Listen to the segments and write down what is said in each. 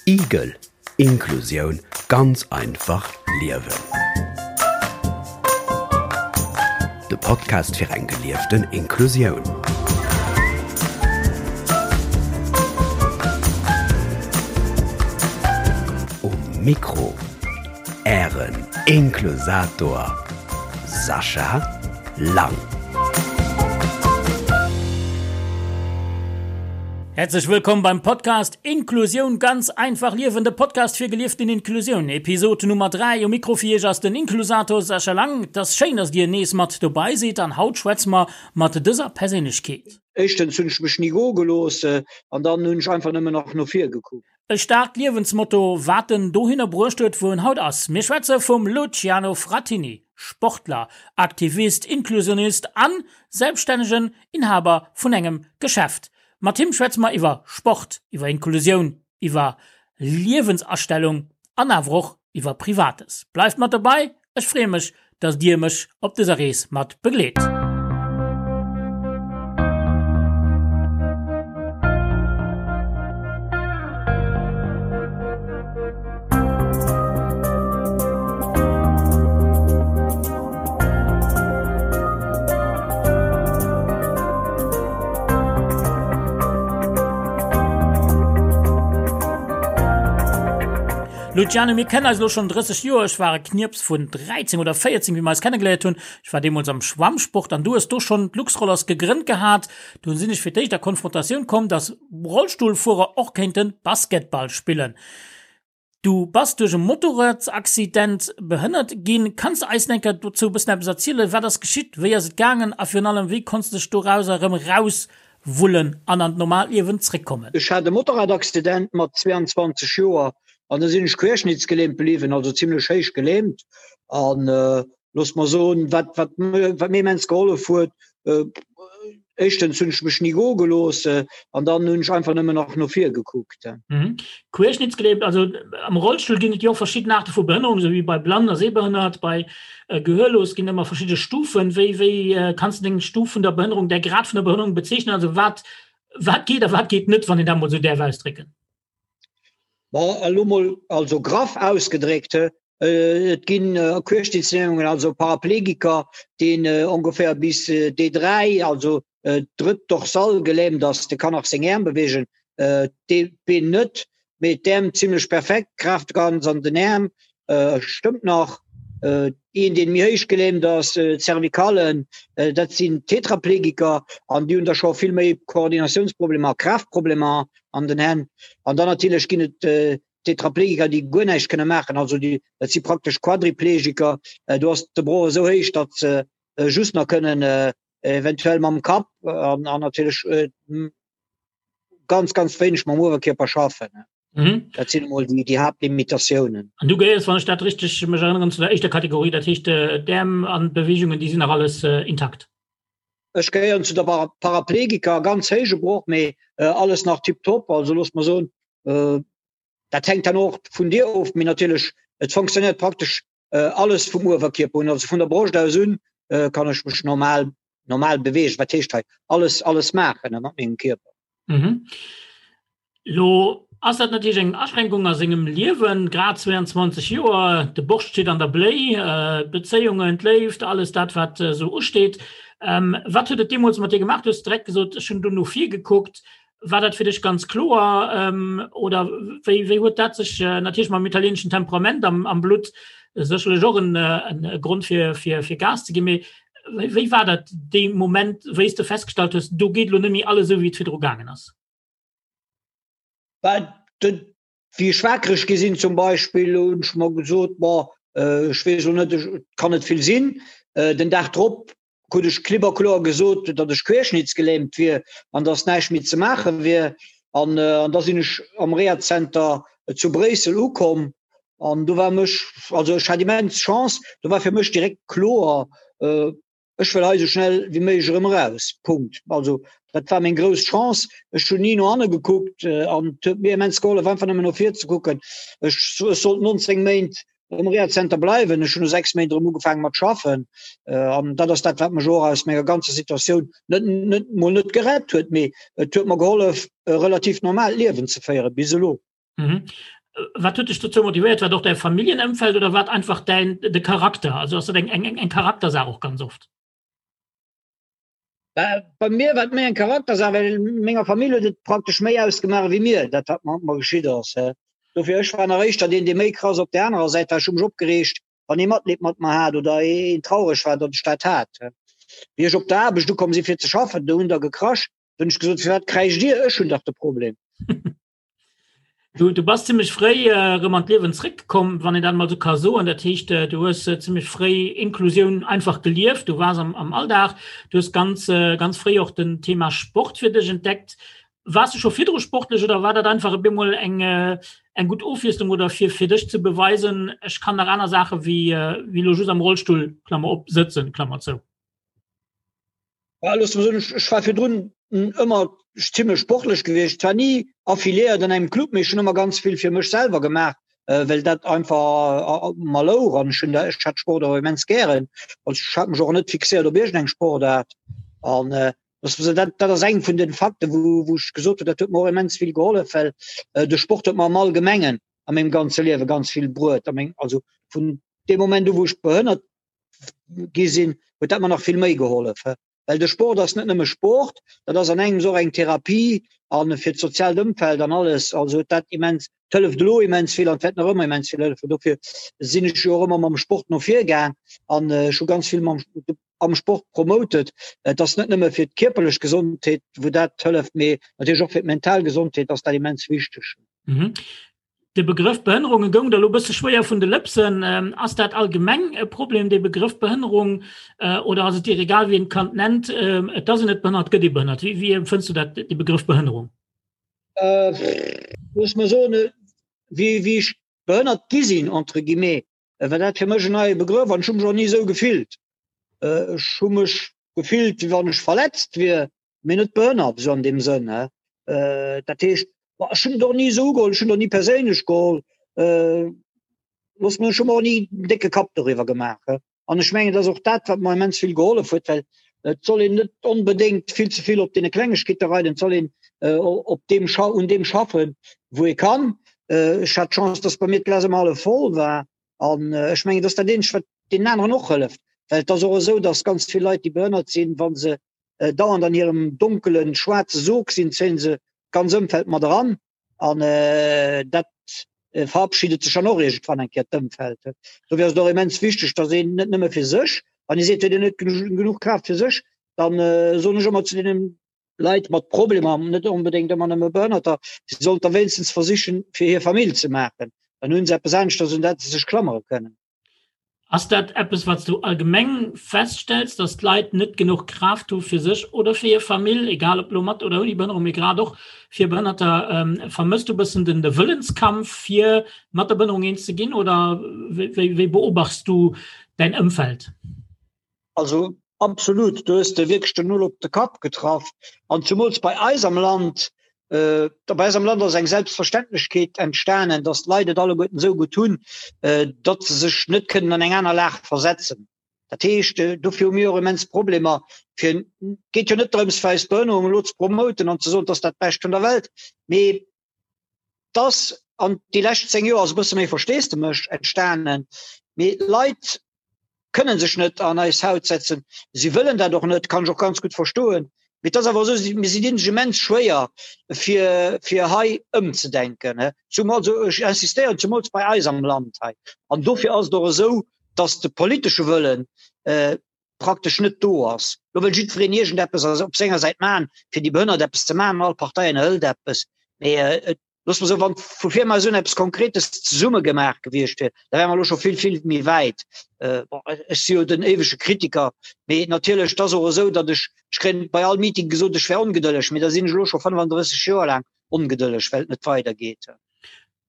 Igel, Inklusioun ganz einfach liewen. De Podcast fir eng gelieften Inklusioun. Um Mikro Ären Inklusator Sascha Lang. Herzlich willkommen beim Podcast Inklusioun ganz einfach liewen, de Podcast fir gelieften Inklusioun, Episode Nummer 3. Um Mikro fir Iech ass den Inklusator Sascha Lang. Et ass schéin, dass Dir nees mat dobei sidd an haut schwätze mer mat dëser Perséinlechkeet. Éischtens hunn ech mech ni goe gelooss an dann hunn ech einfach nëmmen nach no vir gekuckt. E staarkt Liewensmotto, wat en dohinner bruecht huet, wou en haut ass. Mir schwätze vum Luciano Frattini, Sportler, Aktivist, Inklusionist an selbststännegen Inhaber vun engem Geschäft. Mat him schwätze mer iwwer Sport, iwwer Inklusioun, iwwer Liewensastellung an awer och iwwer Privates. Bleift mat dobei, ech freeë mech, dass dir mech op dëser Rees mat begleet. Luciano, mir kennen eis elo schonn 30 Joer. Ech war e Knirps vun 13 oder 14, wéi mer eis kennegeléiert hunn. Ech war deemools am Schwammsport an du hues do schonn d'Luxrollers gegrënnt gehat. Dunn sinn ech fir d'éischt a Konfrontatioun komm, dass Rollstullfuerer och kéinte Basketball spillen. Du bass duerch e Motorradsaccident behënnert ginn. Kanns de eis enker dozou e bëssen eppes erzielen? Wat ass geschitt, wéi ass et gaangen a virun allem, wéi konnts de dech dorauser erëm erauswullen an an d'normaalt Liewen zréckkommen? Ech hat e Motorradaccident mat 22 Joer an da sinn ech querschnittsgelähmt bliwwen, also zimlech héich gelähmt. An Looss mer soen, wat, wat, wat mir immens gehollef huet, éischtens hunn ech mech ni goe gelooss an dann hunn ech einfach nëmmen nach no vir gekuckt. Mhm. Querschnittsgelähmt, also am Rollstull ginn et jo och verschidden Aarte vu Behënnerung, esou wéi bei Blann a Sehbehënnert, bei Gehörlos ginn ëmmer verschidde Stufen. Wéi, wéi kanns de deng Stuf vun der Behënnerung, däi Grad vun der Behënnerung bezeechnen? Also wat, wat geet a wat geet net, wann een dat mol esou däerf ausdrécken? Bon, elo mol also graff ausgedréckt, Et ginn Querschnittslähmungen, also Paraplegiker, deen ongeféier bis D3, also drëtt Dorsal gelähmt ass, de kann nach seng Äerm beweegen, d'Been net, mee d'Äerm zimlech perfekt, d'Kraaft ganz an den Äerm, stëmmt nach. Een, deen méi héich gelähmt ass, d'Cervicalen, dat sinn Tetraplegiker an déi hunn da scho vill méi Koordinatiounsproblemer a Kraaftproblemer an den Hänn. An dann natierlech ginn et Tetraplegiker, déi guer näischt kënne maachen, also déi, dat si praktesch Quadriplegiker, do ass de Broch esou héich, datt se just nach kënnen eventuell mam Kapp an, an natierlech ganz, ganz wéineg mam Uewerkierper schaffen. Mhm. Dat sinn emol déi, déi Haaptlimitatiounen. An du gehéiers, wann ech dat richteg mech erënneren, zu der éischter Kategorie, dat heescht d'Äerm an d'Beweegungen, déi sinn nach alles intakt? Ech gehéieren zu der Paraplegiker, ganz héije Broch, mee alles nach tiptop. Also looss mer soen, dat hänkt dann och vun dir of, mee natierlech et fonctionnéiert praktesch alles vum Uewerkierper un, also vun der Broscht aus un kann ech mech normal normal beweegen. Wat heescht hei alles alles maachen mat mengem Kierper. Mhm. Lo ass dat natierlech eng Aschränkung a sengem Liewen, grad 22 Joer, de Borscht steet an der Bléi, d'Bezéiungen, d'Léift, alles dat wat esou usteet. Wat huet et deemools mat dir gemaach? Du hues direkt gesot, ech hunn do no vir gekuckt. War dat fir dech ganz kloer oder wéi, wéi huet dat sech natierlech mam italieeneschen Temperament am, am Blutt sécherlech och en, en Grond fir, fir, fir Gas ze ginn, mee wéi, wéi war dat dee Moment, wéi s de festgestallt hues, do geet elo net méi alles esou wéi et virdru gaangen ass? Bah, dat, wéi ech wakereg gi sinn zum Beispill, hunn ech mer gesot, bon, ech weess elo net, et kann net vill sinn. Den Dag drop krut ech klipp a kloer gesot, datt ech querschnittsgelähmt wier an datt näischt méi ze maache wier. An an da sinn ech am Rehazenter zu Bréissel ukomm an do war mech, also ech hat immens Chance, do war fir mech direkt kloer, ech wëll hei esou schnell wéi méiglech erëm eraus. Punkt. Also dat war meng grouss Chance. Ech hunn ni no hanne gekuckt an et huet mir immens gehollef, einfach nëmmen no vir ze kucken. Ech sollt 19 Méint um Rehazenter bleiwen. Ech hunn no 6 Méint erëm ugefaange mat schaffen. An dat ass dat, wat mech och aus menger ganzer Situatioun net, net mol net gerett huet, mee et huet mer gehollef, e relativ normaalt Liewen ze féieren bis elo. Mhm. Wat huet dech dozou motivéiert? War et och däi Familljenëmfeld oder war et einfach däin de Charakter? Also ass dat eng eng eng Charaktersaach och ganz oft? Bei mir war et méi eng Charaktersaach, well menger Famill huet et praktesch méi ausgemaach wéi mir, dat wat mat mer geschitt ass. Dofir ech war nach éischter deen, dee méi krass op där anerer Säit war. Ech hu mech opgereegt, wann ee Matleed mat mer hat oder een traureg war, datt ech dat hat. Wéi ech op der Aarbecht ukomm si fir ze schaffen, do hunn der gekrasch, do hunn ech gesot, firwat kräischt Dir, ech hunn dach de Problem. Du, du bass zimmlech fréi äh, rëm an d'Liewen zréckkomm, wann een dat mal so ka soen. Dat heescht, äh, du hues äh, zimmlech fréi Inklusioun einfach gelieft, du waars am, am Alldag, du hues ganz, äh, ganz fréi och den Thema Sport fir dech entdeckt. Waars du scho virdru sportlech oder war dat einfach op eemol eng, äh, eng gutt Ofwiesslung oder fir, fir dech ze beweisen, ech kann nach aner Saache wéi, äh, wéi lo just am Rollstull, Klammer op, sëtzen, Klammer zou? Ja, looss mer soen, ech war virdrun ëmmer zimmlech sportlech gewiescht, zwar ni affiliéiert an engem Club, mee ech hunn ëmmer ganz vill fir mech selwer gemaach, well dat einfach mer louch an ech hunn ech hat Sport och immens gären. Also ech hat mech och net fixéiert op iergendeng Sportaart an looss mer soen, dat dat ass eng vun den Fakten, wou wou ech gesot hunn, dat huet mer och immens vill gehollef, well de Sport huet mer am Allgemengen a mengem ganze Liewe ganz vill bruet a meng also vun deem Moment u wou ech behënnert gi sinn, huet dat mer nach vill méi gehollef. Well de Sport ass net nëmme Sport, dat ass an engems och eng Therapie an fir d'soziaalt Ëmfeld an alles. Also huet dat immens, et hëlleft elo immens vill an et wäert nach ëmmer immens vill hëllefen. Dofir sinn ech jo och ëmmer mam Sport no vir gaang an ech hu ganz vill mam, am Sport promotet. Et ass net nëmme fir d'kierperlech Gesondheet, wou dat hëlleft, mee natierlech och fir d'mental Gesondheet ass dat immens wichteg. Mhm. De Begrëff Behënnerunge goung der elo bësse schwéier vun de Lëpsen. Ass dat allgemeng e Problem, dee Begrëff Behënnerung, oder ass et dir egal, wéi een d'Kand nennt, et ass een net behënnert, gëtt ee behënnert? Wéi, wéi empfënns du dat, dee Begrëff Behënnerung? Looss mer soen, wéi, wéi ech behënnert gi sinn, entre guillemets, war dat fir mech en neie Begrëff an ech hu mech och ni esou gefillt. Ech hu mech gefillt, wéi wann ech verletzt wier, mee net behënnert, esou an deem Sënn. Dat heescht, ech hunn et och ni esou ugeholl, ech hunn et och ni perséinlech geholl, looss mer, ech hu mer och ni en décke Kapp doriwwer gemaach. An ech mengen, et ass och dat, wat mer immens vill gehollef huet, well et soll een net onbedéngt vill ze vill op deene Klengegkeete reiden, et soll een op deem, un deem schaffen, wou ee kann. Ech hat d'Chance, dass bei mir d'Glas ëmmer hallef voll war An ech mengen, dass dat eenzegt, wat deenen aneren och hëlleft, well et ass och esou, dass ganz vill Leit, déi behënnert sinn, wa se dauernd an hirem donkelen, schwaarze Sog sinn, zéie se d'ganz Ëmfeld mat eran. An dat verabschiedet sech dann och iergendwann eng Kéier, d'Ëmfeld. Dofir ass et och immens wichteg, dass een net nëmme fir sech, wann ee seet, huet een net genuch Kraaft fir sech, dann soen ech ëmmer zu deenen Leit mat Problemer, net onbedéngt ëmmer nëmme Behënnerter, si sollten da wéinstens versichen, fir hir Famill ze maachen. Dann hunn se eppes aneschters, un dat se sech klammere kënnen. Ass dat eppes, wat s du allgemeng feststells, dass d'Leit net genuch Kraaft hu fir sech oder fir hir Famill, egal ob elo mat oder ouni Behënnerung, mee grad och fir Behënnerter? Vermësst du e bëssen den de Wëllenskampf, fir mat der Behënnerung eens ze ginn, oder wéi wéi beobachts du däin Ëmfeld? Also absolut, do hues de wierklech den Nol op de Kapp getraff. An zumools bei eis am Land, äh, bei eis am Land ass eng Selbstverständlechkeet entstanen, datt d'Leit et alleguerten esou gutt hunn, äh, datt se sech net kënnen an eng aner Lag versetzen. Dat heescht, äh, dofir hu mir och immens Problemer fir, et geet jo net drëms fir eis Behënnerung elo ze promoten an ze soen, et ass dat Bescht vun der Welt, mee et ass an déi lescht 10 Joer ass e bësse méi Versteesdemech entstanen, mee d'Leit kënnen sech net an eis Haut setzen. Si wëllen dat och net, kann ech och ganz gutt verstoen. Mee et ass awer esou, mir si dinn sech immens schwéier, fir, fir hei ëmzedenken. Zumal, also ech insistéieren, zumools bei eis am Land hei. An dofir ass et och esou, datt de politesche Wëllen praktesch net do ass. Lo wëll jiddwereen iergendeppes op senger Säit maachen, fir déi Behënnert eppes ze maachen, all Partei ënnerhëlt eppes. Mee et Looss mer soen, wann vu vir emol esou eppes Konkretes zesumme gemaach gewiescht wier, da wäre mer elo scho vill, vill méi wäit. Bon, ech si jo den éiwege Kritiker, mee natierlech, et ass och esou, datt ech, ech kréien bei all Meeting gesot, ech wär ongedëlleg, mee da sinn ech elo scho 35 Joer laang ongedëlleg, well et net weidergeet.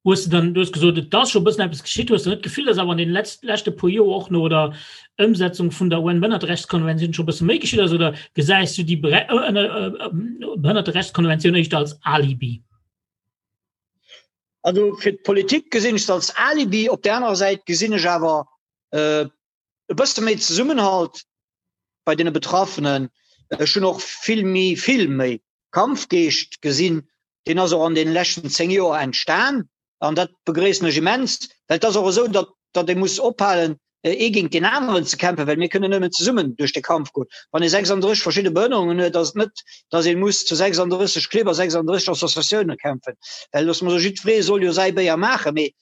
Hues de dann, du hues gesot, et ass scho e bëssen eppes geschitt, hues de net d'Gefill, datt awer an deenen leschte puer Joer och no der Ëmsetzung vun der UN-Behënnerterechtskonventioun scho e bësse méi geschitt ass, oder gesäis du déi Behënnerterechtskonventioun éischter als Alibi? Also fir d'Politik gesinn ech se als Alibi, op där anerer Säit gesinn ech awer e bësse méi Zesummenhalt bei deene Betraffenen. Ech hunn och vill méi, vill méi Kampfgeescht gesinn, deen ass och an deene leschten 10 Joer entstan. An dat begréissen ech immens, well et ass och esou, datt datt ee muss ophalen, ee géint deen aneren ze kämpfen, well mir kënnen nëmmen zesummen duerch de Kampf goen. Wann ee 36 verschidde Behënnerungen huet, ass et net, datt ee muss zu 36 Clibb a 36 Associatioune kämpfen, well loosse mer soen, jiddweree soll jo säi Béier maachen, mee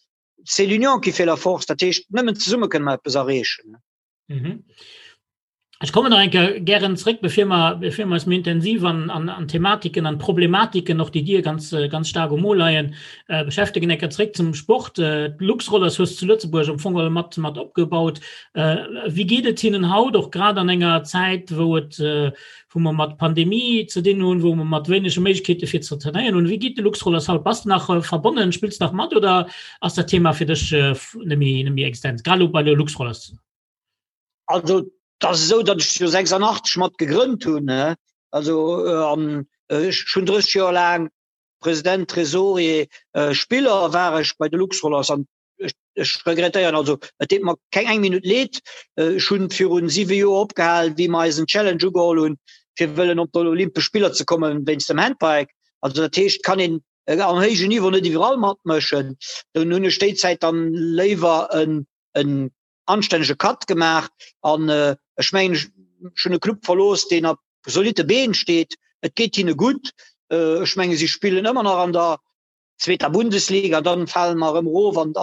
c'est l'union qui fait la force, dat heescht, nëmmen zesumme kënne mer eppes erreechen. Mhm. Ech kommen nach eng Kéier gären zréck, bevir mer, bevir mer eis méi intensiv an, an, an Thematiken, an Problematiken och, déi dir ganz, ganz staark um Mo leien, äh, beschäftegen. Eng Kéier zréck zum Sport. Äh, D'Luxrollers hues zu Lëtzebuerg am Fong geholl mat, mat opgebaut. Äh, wéi geet et hinnen haut, och grad an enger Zäit, wou et, äh, wou mer mat Pandemie ze dinn hunn, wou mer mat wéinege Méiglechkeete fir ze trainéieren hunn? Wéi geet de Luxrollers haut? Bass de nach äh, verbonnen? Spills de nach mat oder ass dat Thema fir dech äh, net méi, net méi existent, grad elo bei de Luxrollers? Also et ass esou, datt ech jo 86 mat gegrënnt hunn, also an ech hunn 30 Joer laang President, Trésorier, Spiller war ech bei de Luxrollers an ech regrettéieren, also et deet mer keng eng Minutt leed. Ech hunn virun 7 Joer opgehal, wéi mer eisen Challenge ugeholl hunn, fir wëllen op d'Olympesch Spiller ze kommen wéinst dem Handbike. Also dat heescht, kann een am héijen Niveau net iwwerall matmëschen. Dunn hunn ech déi Zäit dann léiwer en en anstännege Cut gemaach an ech mengen ech hunn e Club verlooss, deen op zolitte Been steet. Et geet hinne gutt. Ech menge si spillen ëmmer nach an der zweeter Bundesliga, dann fale mer erëm erof an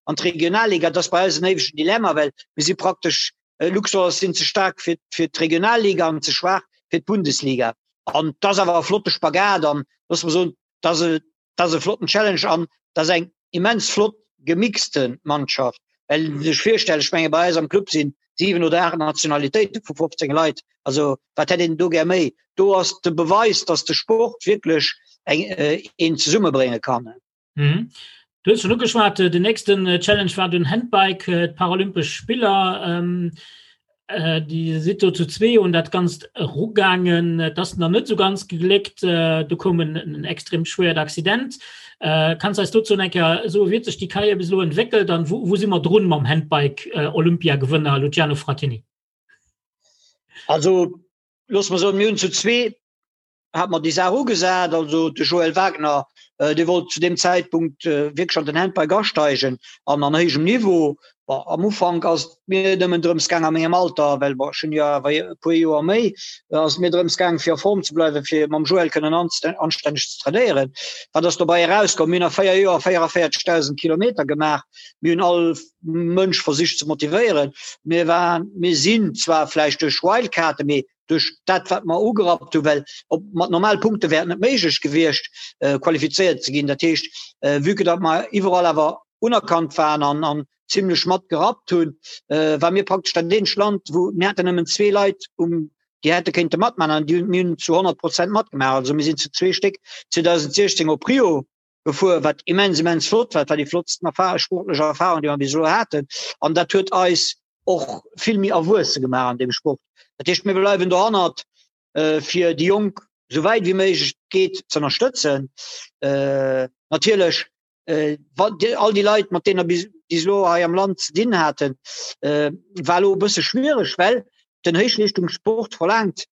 an d'Regionalliga. Dat ass bei eis en éiwegen Dilemma, well mir si praktesch, Luxor sinn ze staark fir fir d'Regionalliga an ze schwaach fir d'Bundesliga. An et ass awer e flotte Spagat an loosse mer soen, et ass e Dat ass e flotten Challenge an dat ass eng immens flott gemixte Mannschaft. Well sech virstellen, ech menge bei eis am Club sinn 7 oder 8 Nationalitéite vu 15 Leit. Also wat hätt een do gär méi? Do ass de Beweis, datt de Sport wierklech eng een zesummebrénge kann. Mhm. Du hues schon ugeschwat, den nächsten Challenge war den Handbike, d'Paralympesch Spiller. Ähm, Äh, Dir sidd do zu zwee un dat Ganzt erugaangen. Et ass nach net esou ganz gegléckt. Äh, do koum en, en extrem schwéiert Accident. Äh, kanns eis dozou eng Kéier soen, wéi huet sech déi Karriär bis elo entwéckelt an wou, wou si mer drun mam Handbike-Olympiagewënner Luciano Fratini? Also, looss mer soen, mir hunn zu zwee hat mer déi Saach ugesat, also de Joël Wagner, dee wollt zu deem Zäitpunkt wierklech an den Handbike asteigen an an héijem Niveau. Bon, am Ufank ass et mir nëmmen drëms gaang a mengem Alter, well bon, ech hunn jo awer e puer Joer méi, ass et mir drëms gaang fir a Form ze bleiwen, fir mam Joël kënnen anstänneg ze trainéieren. Wat ass dobäi erauskomm? Mir hunn a 4 Joer 44.000 Kilometer gemaach. Mir hunn all Mënsch versicht ze motivéieren. Mir waren, mir sinn zwar vläicht duerch Wildcarden, mee duerch dat wat mer ugerappt hu well op mat normal Punkte wär et net méiglech gewiescht äh, qualifizéiert ze ginn. Dat heescht äh, vue que datt mer iwwerall awer unerkannt waren an an zimmlech mat gerappt hunn, äh, war mir praktesch dat eenzegt Land, wou mir haten nëmmen zwee Leit um déi hätte kéinte matman an déi hunn mir hunn zu 100 Prozent matgemaach. Also mir sinn zu zwee Stéck 2016 op Rio gefuer, wat immens immens flott war, war déi flottsten Erfahrung, sportlech Erfahrung, déi mer bis elo haten. An dat huet eis och vill méi erwuesse gemaach an deem Sport. Dat heescht, mir bleiwen dohannert, fir déi Jonk esou wäit wéi méiglech geet ze ënnerstëtzen. Natierlech all déi Leit, mat deene bis elo hei am Land ze dinn haten, war elo e bësse schwiereg, well den Héichleeschtungssport verlaangt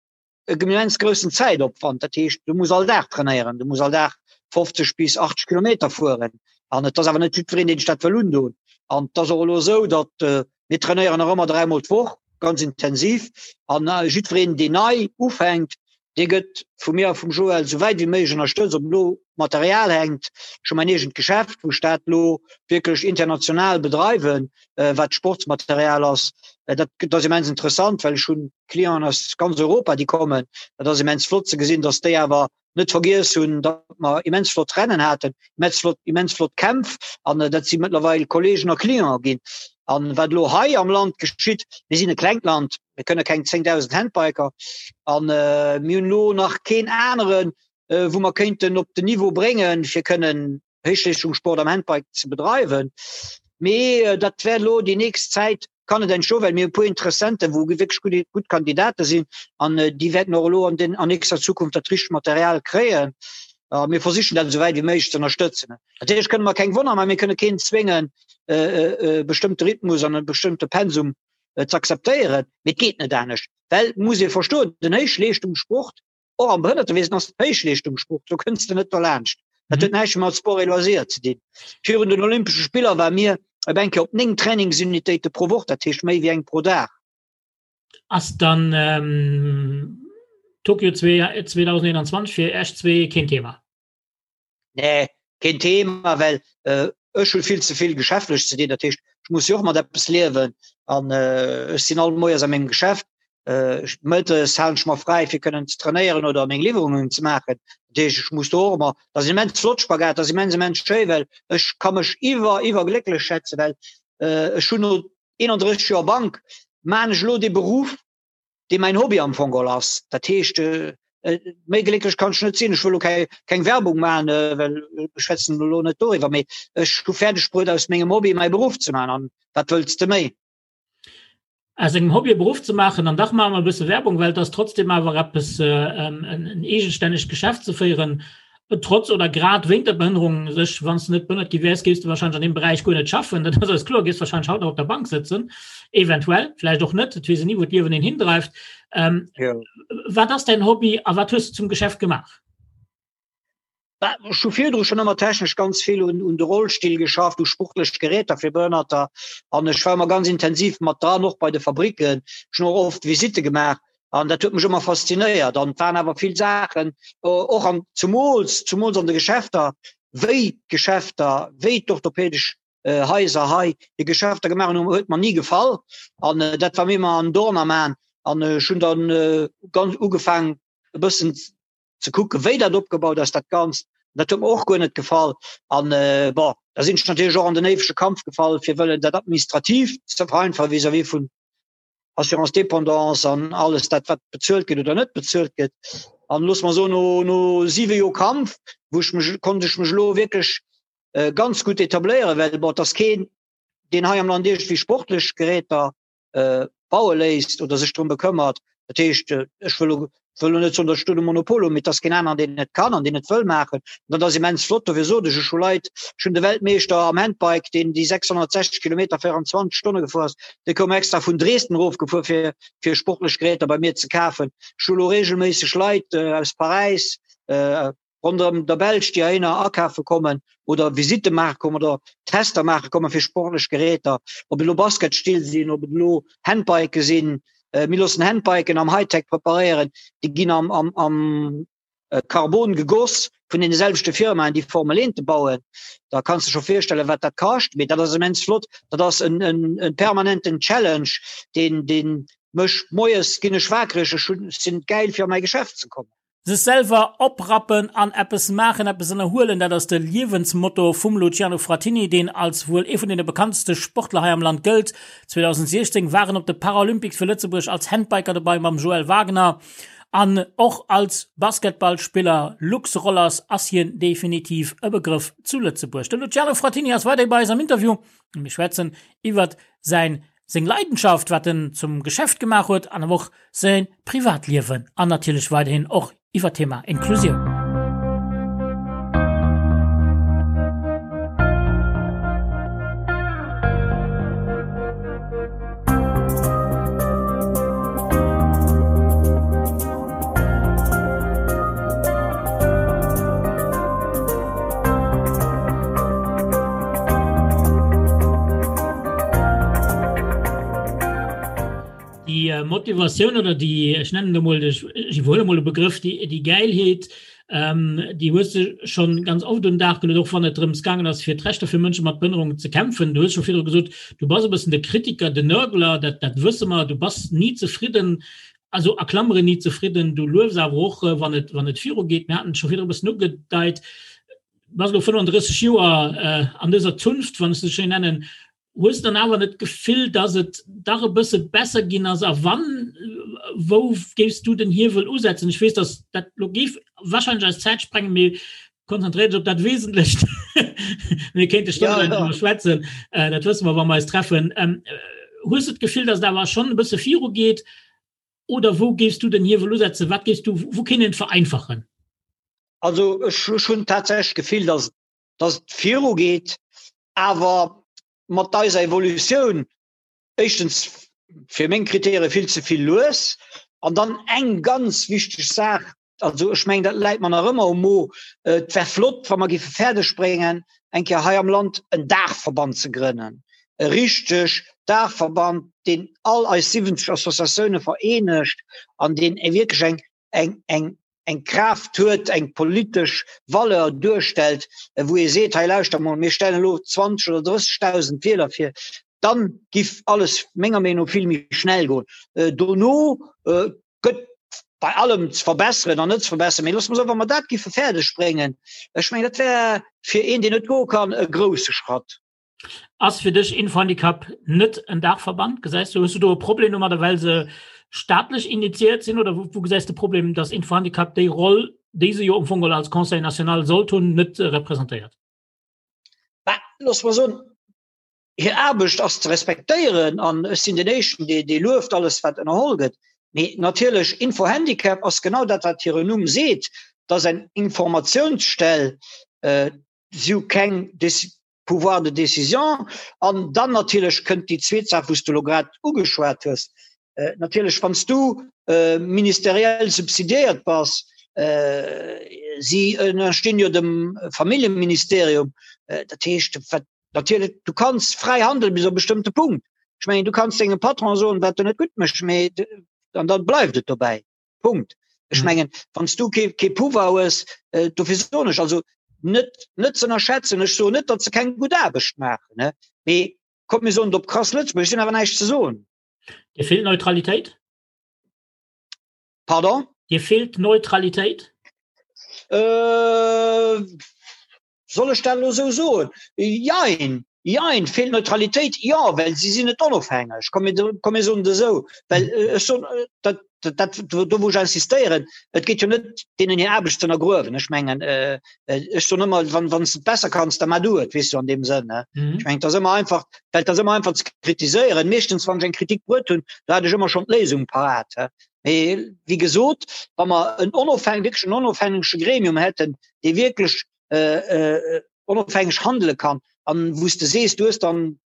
e immens groussen Zäitopwand. Dat heescht, du muss all Dag trainéieren, du muss all Dag 50 bis 80 Kilometer fueren. An et ass awer net jiddwereen, deen sech dat wëll undoen. An et ass och elo esou, datt äh, mir trainéieren nach ëmmer dräimol d'Woch, ganz intensiv. An äh, jiddwereen, deen nei ufänkt, dee gëtt vu mir a vum Joël sou wäit wéi méiglech ënnerstëtzt, ob elo Material hänkt. Ech hu mäin eegent Geschäft, wou ech dat elo wierklech international bedreiwen, äh, wat Sportsmaterial ass. Äh, dat, dat ass immens interessant, well ech hunn Clienten aus ganz Europa, déi kommen. Dat ass immens flott ze gesinn, dass déi awer net vergiess hunn, datt mer immens flott Rennen haten, immens flott, immens flott Kämpf an äh, dat si mëttlerweil Kollegen a Clienten ginn. An wat elo hei am Land geschitt, mir sinn e klengt Land, mir kënne keng 10.000 Handbiker an äh, mir hunn elo nach keen aneren, äh, wou mer kéinten op den Niveau bréngen, fir kënnen Héichleeschtungssport am Handbike ze bedreiwen. Mee dat wäert elo déi nächst Zäit kann et entstoen, well mir e puer Interessenten, wou wierklech gutt, gutt Kandidate sinn an déi wäerten och elo an den, an nächster Zukunft dat richtegt Material kréien. A mir versichen dat esou wäit wéi méiglech ze ënnerstëtzen. Natierlech kënne mer keng Wonner maachen, mir kënne keen zwéngen, e bestëmmte Rhythmus an e bestëmmte Pensum ze akzeptéieren, mee et geet net anescht, well et muss ee verstoen, den Héichleeschtungssport, Och am Behënnertewiesen ass et Héichleeschtungssport, do kënns de net derlaanscht. Dat huet näischt mat Sport et Loisirs ze dinn. Virun den Olympesche Spiller war mir op eng Kéier op 9 Trainingsunitéite pro Woch, dat heescht méi wéi eng pro Dag. Ass dann ähm, Tokio 2021 fir Iech zwee keen Thema? Nee, keen Thema, well äh, ech hu vill ze vill geschäftlech ze dinn. Dat heescht, ech muss jo och mat eppes liewen an äh, ech sinn all Moies a mengem Geschäft. Äh, mëttes halen ech mer fräi fir kënnen ze trainéieren oder meng Liwwerungen ze maachen. Dat heescht, ech muss do och ëmmer, dat ass immens flott Spagat, dat ass immens immens schéi, well ech ka mech iwwer iwwerglécklech schätzen, well äh, ech hunn no 31 Joer Bank maan ech elo dee Beruff, dee mäin Hobby am Fong geholl ass. Dat heescht, méi glécklech kann ech net sinn. Ech wëll elo keng Werbung maachen, well ech schwätzen elo net doriwwer, mee ech hu fäerdeg bruet, aus mengem Hobby mäi Beruff ze maachen. An wat wëlls de méi? Aus engem Hobby e Beruff ze maachen, an dach maache mer e bësse Werbung, well et ass trotzdem awer eppes, en eegestännegt Geschäft ze féieren, Trotz oder grad wéint der Behënnerung sech, wann s de net behënnert gi wäers, géifs de wahrscheinlech an deem Beräich guer net schaffen. Dat ass eis kloer, géifs wahrscheinlech haut nach op der Bank sëtzen, eventuell, vläicht och net, et weess een ni, wou d'Liewen een hindreift. Ähm, ja. Wat ass däin Hobby a wat hues de zum Geschäft gemaach? Ech hu virdru schon ëmmer technesch ganz vill un, un de Rollstill geschafft, u sportlech Geräter fir Behënnerter an ech war ëmmer ganz intensiv mat dran, och bei de Fabriken. Ech hunn och oft Visitte gemaach An dat huet mech ëmmer faszinéiert. An et waren awer vill Saachen, och an zumools, zumools an de Geschäfter, wéi d'Geschäfter, wéi d'orthopädesch Haiser hei hir Geschäfter gemaach hunn, huet mer ni gefall. An dat war mir ëmmer en Dorn am Aen. An ech hunn dann ganz ugefaangen, e bëssen ze kucken, wéi dat opgebaut ass, dat Ganzt. Dat huet mer och guer net gefall. An bon, da sinn ech natierlech och an den éiwege Kampf gefall, fir wëllen dat administrativ ze vereinfachen vis-à-vis vun Assurance dépendance an alles dat wat bezuelt gëtt oder net bezuelt gëtt. An looss mer soen, no, no siwe Joer Kampf, wou ech mech, konnt ech mech elo wierklech äh, ganz gutt etabléieren, well bon, et ass keen, deen hei am Land iergendwéi sportlech Geräter äh, baue léisst oder sech drëm bekëmmert. Dat heescht, äh, ech wëll elo wëll elo net soen, datt ech do de Monopol hunn, mee et ass keen aneren, deen et kann an deen et wëll maachen. An dat ass immens flott. Dofir sot ech, ech hu Leit, ech hunn de Weltmeeschter am Handbike, deen déi 660 Kilometer 24 Stonne gefuer ass, dee koum extra vun Dresden erofgefuer, fir, fir sportlech Geräter bei mir ze kafen. Ech hu elo reegelméisseg Leit aus Paräis, ronderëm der Belsch, déi heihinner akafe kommen oder Visitte maache kommen oder Tester maache komme fir sportlech Geräter, ob et elo Basketstill sinn, ob et elo Handbike sinn. Äh, mir loossen Handbiken am Hightech preparéieren, déi ginn am, am, am äh, Carbon gegoss vun den selwechte Firmaen, déi Formel 1 bauen. Da kanns du scho virstellen, wat dat kascht. Mee dat ass immens flott. Dat ass en, en, en permanenten Challenge, deen, deen mech moies ginn ech wakereg, ech hunn, sinn gäil fir a mäi Geschäft ze kommen. Sech selwer oprappen an eppes maachen, eppes ënnerhuelen, dat ass de Liewensmotto vum Luciano Frattini, deen als wuel ee vun deene bekanntste Sportler hei am Land gëllt. 2016 war en op de Paralympics fir Lëtzebuerg als Handbiker dobei mam Joël Wagner an och als Basketballspiller. Lux Rollers ass hien definitiv e Begrëff zu Lëtzebuerg. De Luciano Frattini ass weiderhi bei eis am Interview a mir schwätzen iwwert säin seng Leidenschaft, wat en zum Geschäft gemaach huet an awer och säi Privatliewen an natierlech weiderhin och iwwer d'Thema Inklusioun. Déi äh, Motivatioun oder déi ech nennen emol ech iwwerhuele mol e Begrëff, déi, déi Gäilheet, ähm, déi hues de schon ganz oft un den Dag geluet, och wann et drëms gaangen ass, fir d'Rechter fir Mënsche mat Behënnerung ze kämpfen. Du hues scho virdru gesot, du bass e bëssen de Kritiker, de Nörgler, dat, dat wësse mer, du bass ni zefridden, also a Klammeren ni zefridden, du luefs awer och, wann et, wann et virugeet. Mir haten et scho virdru e bëssen ugedeit. Bass elo 35 Joer an dëser Zunft, wann ech se schéin nennen, hues de dann awer net d'Gefill, datt et dach e bësse besser ginn ass? A wann, wou géifs du den Hiewel usetzen? Ech weess, datt dat elo géif wahrscheinlech eis Zäit sprengen, mee konzentréier dech op dat Wesentlecht. Mir kéinte stonnelaang driwwer schwätzen, dat wësse mer, wa mer eis treffen. Hues de d'Gefill, datt et awer schonn e bësse virugeet? Oder wou géifs du den Hiewel usetzen? Wat géifs du, wou kéint een et vereinfachen? Also ech hunn tatsächlech d'Gefill, datt datt et virugeet, awer mat eiser Evolutioun éischtens fir meng Kritäre vill ze vill lues. An dann eng ganz wichteg Saach. also ech mengen, dat läit mer nach ëmmer um Mo, et wär flott, wa mer géife fäerdeg bréngen, eng Kéier hei am Land en Daachverband ze grënnen, e richteg Daachverband, deen all eis 70 Associatioune vereenegt an deen wierklech eng, eng, eng, eng Kraaft huet, eng politesch Valeur duerstellt, wou ee seet, hei lauschter mol, mir stellen elo 20 oder 30.000 Wieler vir, dann giff alles menger Meenung no vill méi schnell goen. Dono gëtt bei allem ze verbesseren an net ze verbesseren, mee loosse mer soen, wa mer dat giffe fäerdeg bréngen, ech mengen, dat wär fir een, deen net goe kann, e grousse Schratt. Ass fir dech Infohandicap net en Daachverband? Gesäis du, hues du do e Problem domadder, well se staatlech initiiert sinn oder wou gesäis de Problem, datt Infohandicap déi Roll, déi se jo am Fong als Conseil national sollt hunn, net representéiert? Bah, loosse mer soen, hir Aarbecht ass ze respektéieren an ech sinn den Éischten, dee, dee lueft alles, wat ënnerholl gëtt. Mee natierlech, Infohandicap ass genau dat, wat hiren Numm seet, dat ass eng Informatiounsstell. Si hu keng Pouvoir de décision. An dann natierlech kënnt déi zweet Saach, wou s de elo grad ugeschwat hues. Natierlech, wann s du ministeriell subsidiéiert bass, si ënnerstinn jo dem Familljeministerium, dat heescht, wat natierlech, du kanns fräi handelen bis op e bestëmmte Punkt. Ech mengen, du kanns dengem Patron soen, wat en net gutt mécht, mee an da bleift et dobäi. Punkt. Ech mhm. mengen, wann du kee, kee Pouvoir hues, äh, dofir soen ech also net net ze ënnerschätzen. Ech soen net, datt se keng gutt Aarbecht maachen, ne? Mee kommt mir soen op krass Lëtzebuerg, sinn awer näischt ze soen. Dir feelt Neutralitéit? Pardon? Dir feelt Neutralitéit? Äh, Soll ech dat elo esou soen? Jein, jein. Feelt Neutralitéit? Jo, well si sinn net onofhängeg. Komm mir, komm mir soen et esou. Well ech soen, dat, dat, do wou ech insistéieren, et geet jo net deenen hir Aarbecht ze ënnergruewen. Ech mengen, ech soen ëmmer, wann, wann s de et besser kanns, da mar du et, weess du, an deem Sënn, ne. Ech mengen, et ass ëmmer einfach, well et ass ëmmer einfach ze kritiséieren. Meeschtens, wann ech eng Kritik bruet hunn, do hat ech ëmmer schonn d'Léisung parat. Mee wéi gesot, wa mer en onofhäng-, wierklech en onofhängege Gremium hätten, dee wierklech äh, äh, onofhängeg handele kann an wou s de sees, du hues dann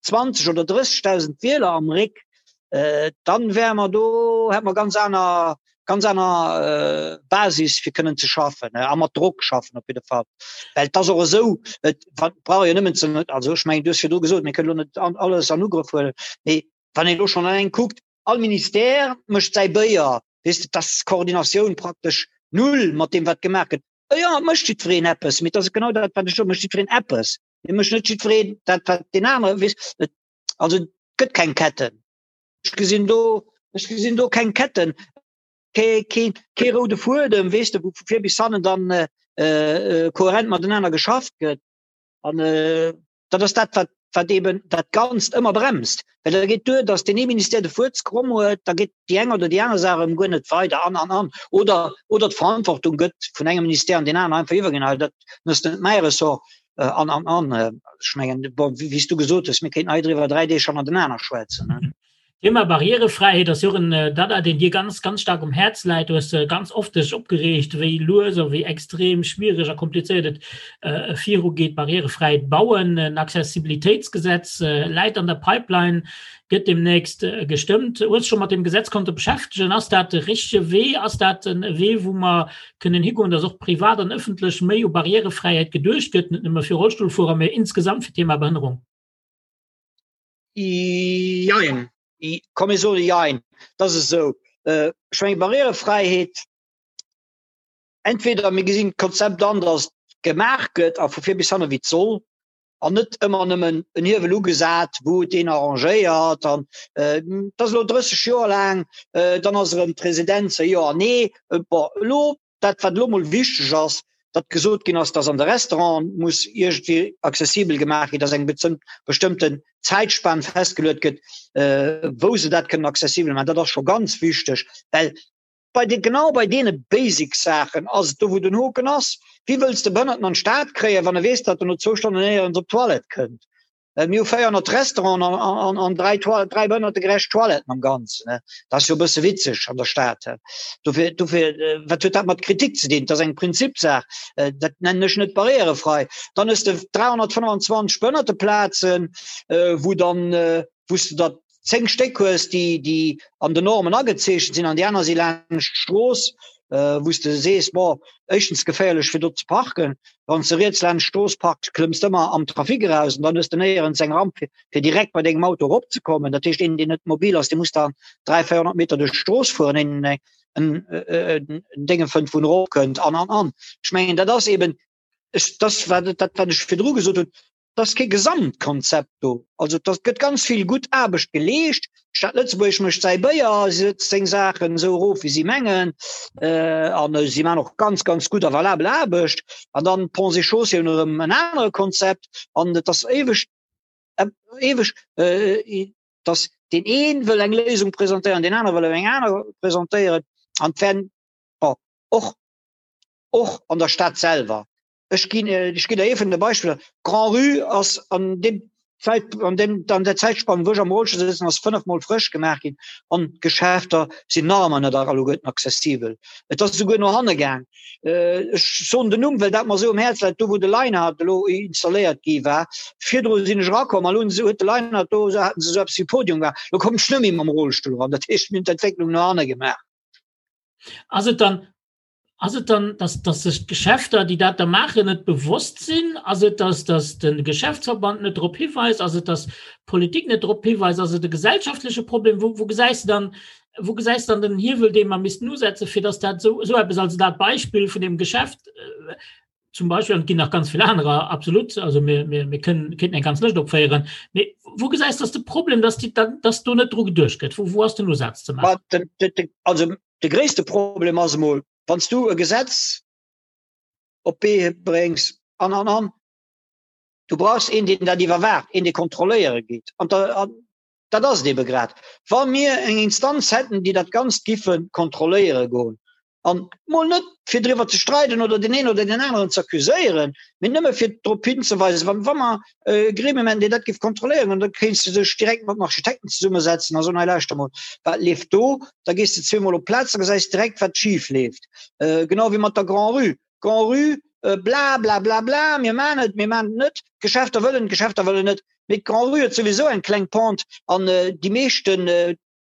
20 oder 30.000 Wieler am Réck, äh, dann wäre mer do, hätt mer ganz aner ganz aner äh, Basis fir kënnen ze schaffen äh, a mat Drock schaffen op jidde Fall. Well et ass och esou, et brauch jo nëmmen ze, also ech mengen, du hues virdru gesot, mir kënnen elo net an, alles an Ugrëff huelen, mee wann een elo schonn eleng kuckt, all Ministère mécht säi Béier, weess de, dass Koordinatioun praktesch null mat deem wat gemaach gëtt. Jo, et mécht jiddwereen eppes, mee et ass genau dat, wat ech soen, mécht jiddwereen eppes. Mee mécht net jiddwereen dat, wat deen anere, weess, et, also et gëtt keng Ketten. Ech gesinn do, ech gesinn do keng Ketten, kee, kee, kee roude Fuedem, weess de, wou vu vir bis hannen dann kohärent matenaner geschafft gëtt. An dat ass dat, wat, wat eben dat Ganzt ëmmer bremst. Well da geet duer, datt deen ee Ministère de Fuerz kromm huet, da geet déi eng oder déi aner Saach erëm guer net weider an, an, an. Oder, oder d'Verantwortung gëtt vun engem Ministère an deen aneren einfach iwwerginn, hei dat ass net mäi Ressort an, an, an. Ech mengen, bon, wéi s du gesot hues, mir kéinten hei driwwer 3 Deeg hannertenaner schwätzen. Thema Barrierefräiheet ass jo och en Dada, deen dir ganz, ganz staark um Häerz läit. Du hues ganz oft dech opgereegt, wéi lues a wéi extrem schwiereg a komplizéiert et virugeet, barrierefräi bauen. En Accessibilitéitsgesetz läit an der Pipeline, gëtt deemnächst gestëmmt. Hues scho mat deem Gesetz konnte beschäftegen? Ass dat de richtege Wee? Ass dat en Wee, wou mer kënnen higoen, dass och privat an ëffentlech méi u Barrierefräiheet geduecht gëtt, net nëmme fir Rollstullfuerer, mee insgesamt fir d'Thema Behënnerung? Jein. Komm mir soe jein. Dat ass esou. Ech mengen Barrièrefräiheet, entweder mir gesinn d'Konzept an, datt gemaach gëtt a vu vir bis hanne wéi et soll an net ëmmer nëmmen en Hiewel ugesat, wou et een arrangéiert an et ass elo 30 Joer laang, dann ass erëm d'Residenz, jo an nee. Bon, elo dat wat elo mol wichteg ass, datt gesot ginn ass, datt an de Restauranten muss iergendwéi accessibel gemaach ginn, datt eng bestëmmten Zäitspan festgeluet gëtt, wou se dat kënnen accessibel maachen. Dat ass scho ganz wichteg, well bei de, genau bei deene basic Saachen ass et do, wou den Hoken ass. Wéi wëlls de Behënnerten an d'Stad kréien, wann e weess, datt en no zwou Stonnen néierens op d'Toilette kënnt? Mir hu 400 Restauranten an, an, an dräi, dräi behënnertegerecht Toiletten am Ganzen. Dat ass jo e bësse witzeg an der Stad. Dofir, dofir, wat huet dat mat Kritik ze dinn? Dat ass eng Prinzipsaach. Dat nennen ech net barrierefrei. Dann hues de 325 Behënnerteplazen, wou dann, wou s de der 10 Stéck hues, déi, déi an den Normen agezeechent sinn an déi aner si laanscht d'Strooss. wou s de sees, bon, éischtens geféierlech fir do ze parken, wann s de riets laanscht d'Strooss parks, klëmms de ëmmer am Trafic eraus an dann hues de néierens eng Ramp fir, fir direkt bei dengem Auto eropzekommen. Dat heescht, een deen net mobil ass, dee muss dann 300, 400 Meter duerch d'Strooss fueren, een en en Dénge fënnt, wou en eropkënnt an an an. Ech mengen, dat ass eben, ech, dat wat, dat wat ech virdru gesot hunn, Et ass kee Gesamtkonzept do. Also et gëtt ganz vill gutt Aarbecht geleescht. D'Stad Lëtzebuerg mécht säi Béier, si sëtzt seng Saachen esou erof, wéi si mengen. An si maachen och ganz, ganz gutt a valabel Aarbecht. An dann d'Ponts et Chaussées hunn erëm en anere Konzept. An et ass éiweg, éiweg, datt deen ee wëll eng Léisung presentéieren, deen anere wëll eng aner presentéieren. An et wären, bon, och, och an der Stad selwer Ech ginn ech ginn der ee vun de Beispiller. D'Grand-Rue ass an deem Zäit an deem an der Zäitspann, wou ech am Rollstull sëtzen, ass fënnefmol frësch gemaach ginn an d'Geschäfter sinn nach ëmmer net alleguerten accessibel. Et ass esouguer no hanne gaang. Ech soen den Numm, well dat mer esou um Häerz läit, do wou de Leinhard elo installéiert gi war. Virdru sinn ech erakomm an elo hunn se huet de Leinhard do haten se esou eppes wéi Podium gemaach. Elo kommen ech net méi mam Rollstull eran. Dat heescht, mir hunn d'Entwécklung no hanne gemaach. Ass et dann Ass et dann, dass, dass sech d'Geschäfter, déi dat da maachen, net bewosst sinn? Ass et, dass, dass de Geschäftsverband net drop hiweist? Ass et, dass d'Politik net drop hiweist? Ass et e gesellschaftleche Problem? Wou, wou gesäis de dann, wou gesäis de dann den Hiewel, dee mer missten usetzen, fir dass dat esou, esou eppes, also dat Beispill vun deem Geschäft zum Beispill, an et ginn nach ganz vill anerer, absolut, also mir, mir, mir kënnen, kéinten eng ganz Lëscht opféieren, mee wou gesäis de, dass de Problem, dass déi, dass do net dru geduecht gëtt? Wou, wou ass den Usaz ze maachen? Den, den, den, also De gréisste Problem ass emol, wann s du e Gesetz op d'Bee bréngs an, an, an, du brauchs een, deen dat iwwerwaacht, een, dee kontrolléiere geet. An dat ass et ebe grad. Wa mir eng Instanz hätten, déi dat Ganzt giffe kontrolléiere goen, an mol net fir driwwer ze streiden oder deen een oder deen aneren ze accuséieren, mee nëmme fir drop hinzeweisen, wa, wa mer e Gremium hätten, deen dat géif kontrolléieren, an da kéints de dech direkt mat den Architekten zesummesetzen a soen, hei lauschter mol, wat leeft do? Da gees de zweemol op d'Plaz, da gesäis direkt, wat schif leeft. Genau wéi mat der Grand-Rue. Grand-Rue, bla bla bla bla, mir maachen et, mir maachen et net, d'Geschäfter wëllen, d'Geschäfter wëllen net. Mee d'Grand-Rue huet souwisou eng kleng Pente an déi meeschten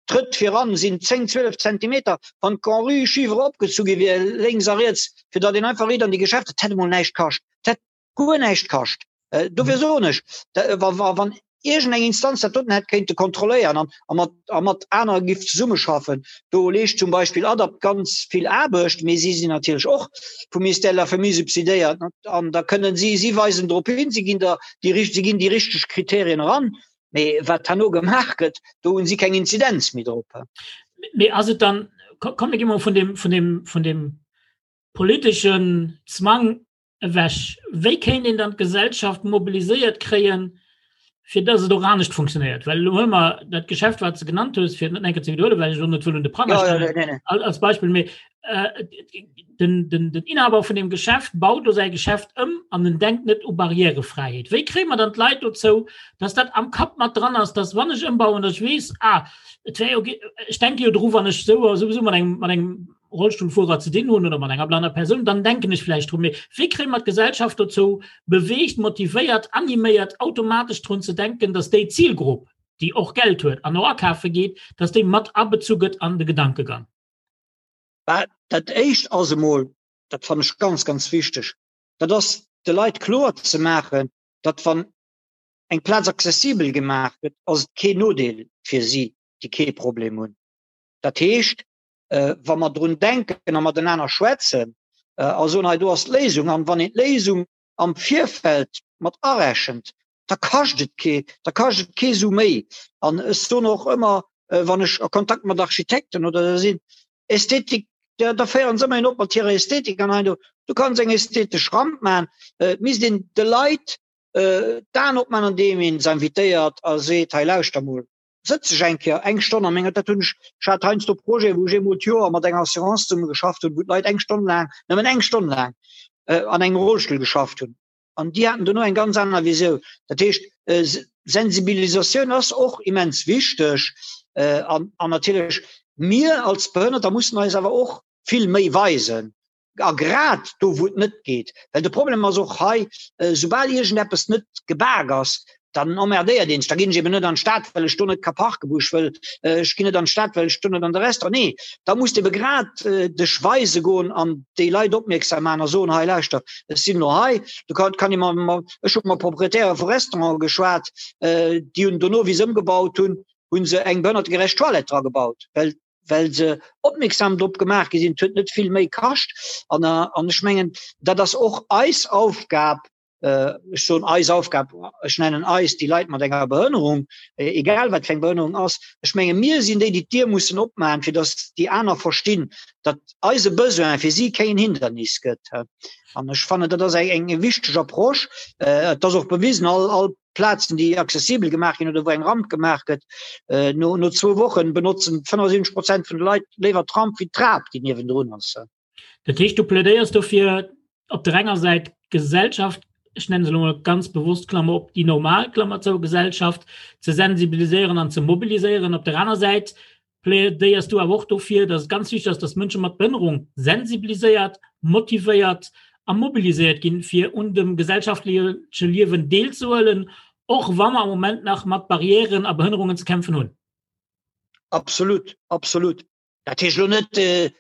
Trëtt viran sinn 10, 12 Zentimeter. Wann d'Grand-Rue schif eropgezu gi wier, lénks a riets, fir datt een einfach riit an déi Geschäfter, dat hätt emol näischt kascht. Dat hätt guer näischt kascht. Dofir soen ech, wann iergendeng Instanz dat doten hätt kéinte kontrolléieren an a mat a mat aner giff zesummeschaffen, do leescht zum Beispill ADAPT ganz vill Aarbecht, mee si sinn natierlech och vum Ministère de la Famille subsidéiert an da kënnen si, si weisen drop hin, si ginn der déi si ginn déi richteg Kriterien eran, mee wat herno gemaach gëtt, do hunn si keng Inzidenz méi drop. Mee ass et dann, komm mir gi mol vun deem, vun deem, vun deem politeschen Zwang ewech. Wéi kéint een dann d'Gesellschaft mobiliséiert kréien, fir dass et och anescht funktionéiert? Well elo huele mer dat Geschäft, wat s de genannt hues, fir et net nach eng Kéier ze widderhuelen, well ech elo net wëll un de Pranger stellen, als Beispill, mee den, den, den Inhaber vun deem Geschäft baut do säi Geschäft ëm an en denkt net u Barrièrefräiheet. Wéi kréie mer dann d'Leit dozou, dass dat am Kapp mat dran ass, dass wann ech ëmbauen, dass ech weess, ah, et wär jo, ech denke jo dru wann ech sou a souwisou mat engem, mat engem Rollstullfuerer ze dinn hunn oder mat enger blanner Persoun, dann denken ech vläicht drun. Mee wéi kréie mer d'Gesellschaft dozou beweegt, motivéiert, animéiert, automatesch drun ze denken, dass déi Zilgrupp, déi och Geld huet an och akafe geet, dass déi mat abezu gëtt an de Gedankegang? Bah, dat Éischt ass emol, dat fannen ech ganz, ganz wichteg, dat ass de Leit kloer ze maachen, datt wann eng Plaz accessibel gemaach gëtt, ass et keen Nodeel fir si, déi kee Problem hunn. Dat heescht, wa mer drun denken a matenaner schwätzen a soen, hei do ass d'Léisung, an wann een d'Léisung am Virfeld mat arechent, da kascht et kee, da kascht et kee Su méi. An ech soen och ëmmer, wann ech a Kontakt mat Architekten oder esou sinn, Ästhetik, da, da féieren se ëmmer een op mat hirer Ästhetik an hei do. Du kanns eng ästhetesch Ramp maachen, et misst een de Leit d'Aen opmaachen, andeem een se invitéiert a seet, hei lauschter mol, sëtz ech eng Kéier eng Stonn a menger, dat hunn ech, ech hat heiansdo Projeten, wou ech eemol d'Joer mat enger Assurance zesumme geschafft hunn, wou d'Leit eng Stonn laang, nëmmen eng Stonn laang an engem Rollstull geschafft hunn. An déi haten dono eng ganz aner Visioun. Dat heescht, Sensibilisatioun ass och immens wichteg. An, an natierlech mir als Behënnerter mussen eis awer och vill méi weisen. A grad do, wou et net geet. Well de Problem ass och hei, soubal iergendeppes net gebak ass, Dann emmerdéiert een sech. Da ginn ech eben net an d'Stad, well ech do net ka parken, wou ech wëll. Ech ginn net an d'Stad, well ech do net an de Restaurant. Nee, da muss de ebe grad dech weise goen an déi Leit opmierksam maachen a soen, hei lauschter, ech sinn elo hei. Du kann, kann ee mat, ech hu mat Proprietäre vu Restaurante geschwat, déi hunn dono, wéi se ëmgebaut hunn, hu se eng behënnertegerecht Toilette dra gebaut, well well se opmierksam drop gemaach gi sinn. Et huet net vill méi kascht. An, an ech mengen, dat ass och eis Aufgab, ech soen eis Aufgab, ech nennen eis déi Leit mat enger Behënnerung, egal wat fir eng Behënnerung ass, ech menge mir sinn déi, déi d'Dier mussen opmaachen, fir datt déi aner verstinn, datt eise Besoin fir si keen Hindernis gëtt. An ech fannen, dat ass eng eng wichteg Approche. Et ass och bewisen, all all Plazen, déi accessibel gemaach ginn oder wou eng Ramp gemaach gëtt, no no zwou Wochen benotzen 75 Prozent vun de Leit léiwer d'Ramp wéi d'Trap, déi niewendrun ass. Dat heescht, du plädéiers dofir, op der enger Säit d'Gesellschaft, ech nenne se elo mol ganz bewosst, Klammer op, déi normal, Klammer zou, Gesellschaft ze sensibiliséieren an ze mobiliséieren. Op der aner Säit plädéiers du awer och dofir, dass et ganz wichteg ass, dass Mënsche mat Behënnerung sensibiliséiert, motivéiert a mobiliséiert ginn, fir un dem gesellschaftleche Liewen deelzehuelen, och wa mer am Moment nach mat Barrièren a Behënnerungen ze kämpfen hunn. Absolut, absolut. Dat heescht elo net,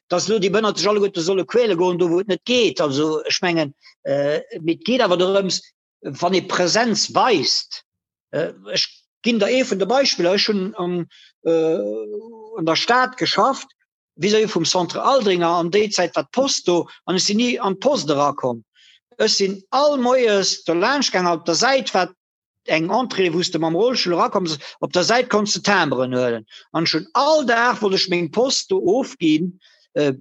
datt elo déi Behënnert sech alleguerte solle quäle goen, do wou et net geet. Also ech mengen, mee et geet awer dorëms, wann ee Präsenz weist. Ech ginn der ee vun de Beispiller, Ech hunn an der Stad geschafft, vis-à-vis vum Centre Aldringer, an déi Zäit war d'Post do an ech sinn ni an d'Post erakomm. Ech sinn all moies do laanscht gaangen, op der Säit war eng Entrée wou s de mam Rollstull erakomm op der Säit konns de Timberen huelen an ech hunn all Dag wollt ech meng Post do ofginn äh,